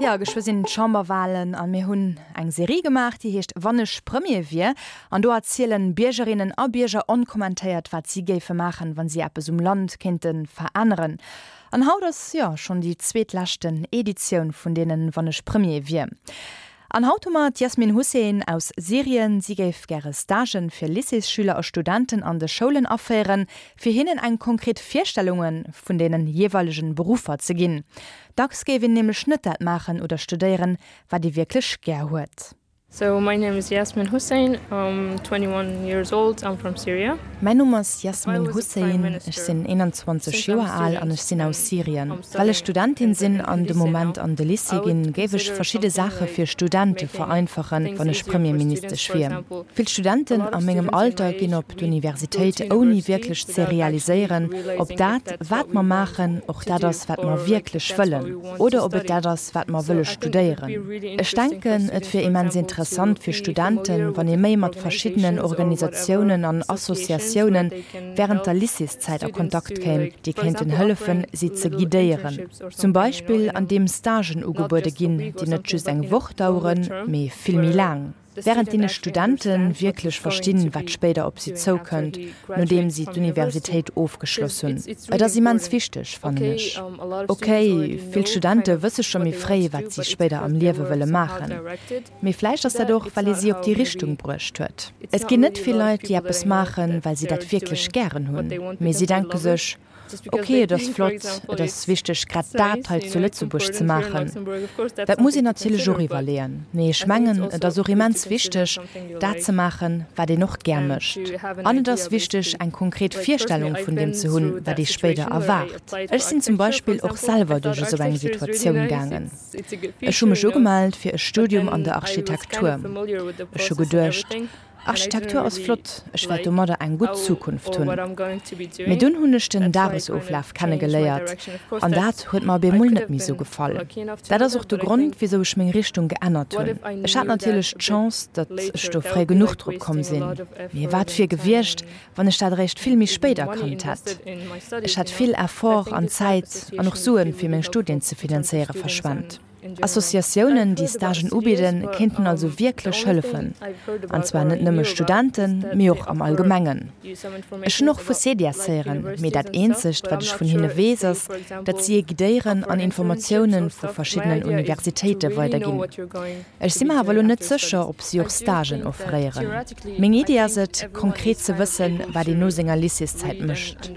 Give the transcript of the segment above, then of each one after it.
Jo, geschwë sinn d'Chamberwalen a mir hunn eng Serie gemaach, déi heescht Wann ech Premier wier. An do erzielen Biergerinnen a Bierger onkommentéiert, wat si géife maachen, wa si eppes um Land kéinte veränneren. An haut ass, jo, schonn déi zweetleschten Editioun vun deenen Wann ech Premier wier. An haut hu mer d'Yasmin Hussein aus Syrien. Si géif gäre Stagen fir Lycéesschüler a Studenten an de Schoulen aféieren, fir hinnen eng konkret Virstellunge vun deenen jeeweilegen Beruffer ze ginn. Dacks géif een nämlech net dat maachen oder studéieren, wat ee wierklech gär huet. So my name is Yasmin Hussein, I'm 21 years old, I'm from Syria. Mäin Numm ass Yasmin Hussein, ech sinn 21 Joer al an ech sinn aus Syrien. Well ech Studentin sinn an de Moment an de Lycée ginn, géif ech verschidde Saache fir Studente vereinfachen, wann ech Premierministesch wier. Vill Studenten a mengem Alter ginn op d'Universitéit ouni wierklech ze realiséieren, ob dat, wat mer maachen, och dat ass, wat mer wierklech wëllen oder ob et dat ass, wat mer wëlle studéieren. Ech denken, et wier immens interessant fir Studenten, wann ee méi mat verschiddenen Organisatiounen an Associatioune wärend der Lycéeszäit a Kontakt kéim, déi kéinten hëllefen, si ze guidéieren. Zum Beispill andeem Stagen ugebuede ginn, déi net just eng Woch daueren, mee vill méi laang. Wärend deene Studente wierklech verstinn, wat spéider op si zoukënnt, nodeem si d'Universitéit ofgeschloss hunn. Et ass immens wichteg, fannen ech. Ok, vill Studente wësse scho méi fréi, wat si spéider am Liewe wëlle maachen. Mee vläicht ass dat och, well ee si op déi Richtung bruecht huet. Et ginn net vill Leit, déi eppes maachen, well si dat wierklech gären hunn, mee si denke sech, Ok, et ass flott, et ass wichteg grad dat hei zu Lëtzebuerg ze maachen. Dat muss een natierlech och iwwerleeën. Mee ech mengen, et ass och immens wichteg, dat ze maachen, wat een och gär mécht. An et ass wichteg, eng konkret Virstellung vun deem ze hunn, wat ee spéider erwaart. Ech sinn zum Beispill och selwer duerch esou eng Situatioun gaangen. Ech hu mech ugemellt fir e Studium an der Architektur. Ech hu geduecht, Architektur ass flott, ech wäert domadder eng gutt Zukunft hunn. Mee dunn hunn ech den Dagesoflaf kenne geléiert an dat huet mer op eemol net méi sou gefall. Dat ass och de Grond, wisou ech meng Richtung geännert hunn. Ech hat natierlech d'Chance, datt ech do fréi genuch drop komm sinn. Mee wat wier gewiescht, wann ech dat eréischt vill méi spéit erkannt hätt? Ech hätt vill Effort an Zäit an och Suen, fir meng Studien ze finanzéieren, verschwent. Associatiounen, déi Stagen ubidden, kéinten also wierklech hëllefen. An zwar net nëmme Studenten, mee och am Allgemengen. Ech hunn och vu Cedias héieren, mee dat eenzegt, wat ech vun hinne weess, ass, datt si ee guidéieren an Informatioune vu verschiddenen Universitéite weiderginn. Ech si mer awer elo net sécher, ob si och Stagen offréieren. Meng Iddi ass et, konkret ze wëssen, wat een no senger Lycéeszäit mécht.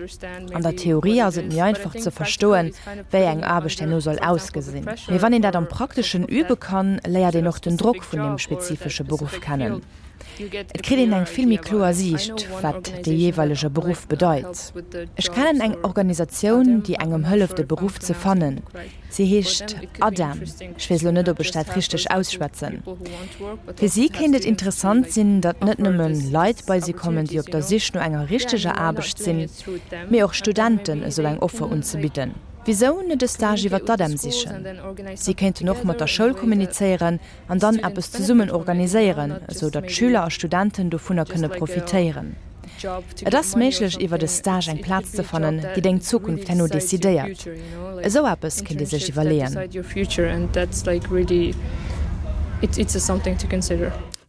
An der Theorie ass et méi einfach ze verstoen, wéi eng Aarbecht herno soll ausgesinn. Mee wann een dat am Prakteschen übe kann, léiert een och den Drock vun deem spezifesche Beruff kennen. Et kritt een eng vill méi kloer Siicht, wat dee jeeweilege Beruff bedeit. Ech kennen eng Organisatioun, déi engem hëlleft, e Beruff ze fannen. Si heescht ADEM, ech weess elo net, ob ech dat richteg ausschwätzen. Fir si kéint et interessant sinn, datt net nëmme Leit bei si kommen, déi op der Sich no enger richteger Aarbecht sinn, mee och Studenten esou eng Offer unzebidden. Wisou net e Stage iwwer d'ADEM sichen? Si kéinten och mat der Schoul kommunizéieren an dann eppes zesummen organiséieren, esou datt Schüler a Studenten dovunner kënne profitéieren. Et ass méiglech iwwert e Stage eng Plaz ze fannen, déi deng Zukunft herno decidéiert. Esou eppes kéint ee sech iwwerleeën.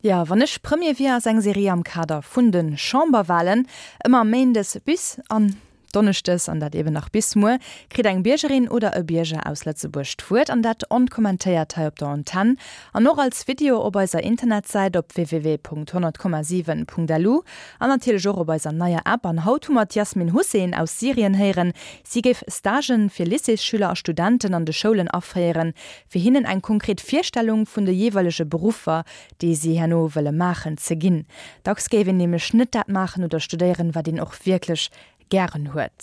Jo, wann ech Premier wier ass eng Serie am Kader vun de Chamberwalen, ëmmer méindes bis an Donneschdes, an dat eben nach bis muer, kritt eng Biergerin oder e Bierger aus Lëtzebuerg d'Wuert, an dat onkommentéiert hei op der Antenn an och als Video op eiser Internetsäit op www.100,7.lu an natierlech och op eiser neier App. An haut hu mer d'Yasmin Hussein aus Syrien héieren. Si géif Stagen fir Lycéesschüler a Studenten an de Schoulen aféieren, fir hinnen eng konkret Virstellung vun de jeeweilege Beruffer, déi si herno wëlle maachen, ze ginn. Dacks géif een nämlech net dat maachen oder studéieren, wat een och wierklech gären huet.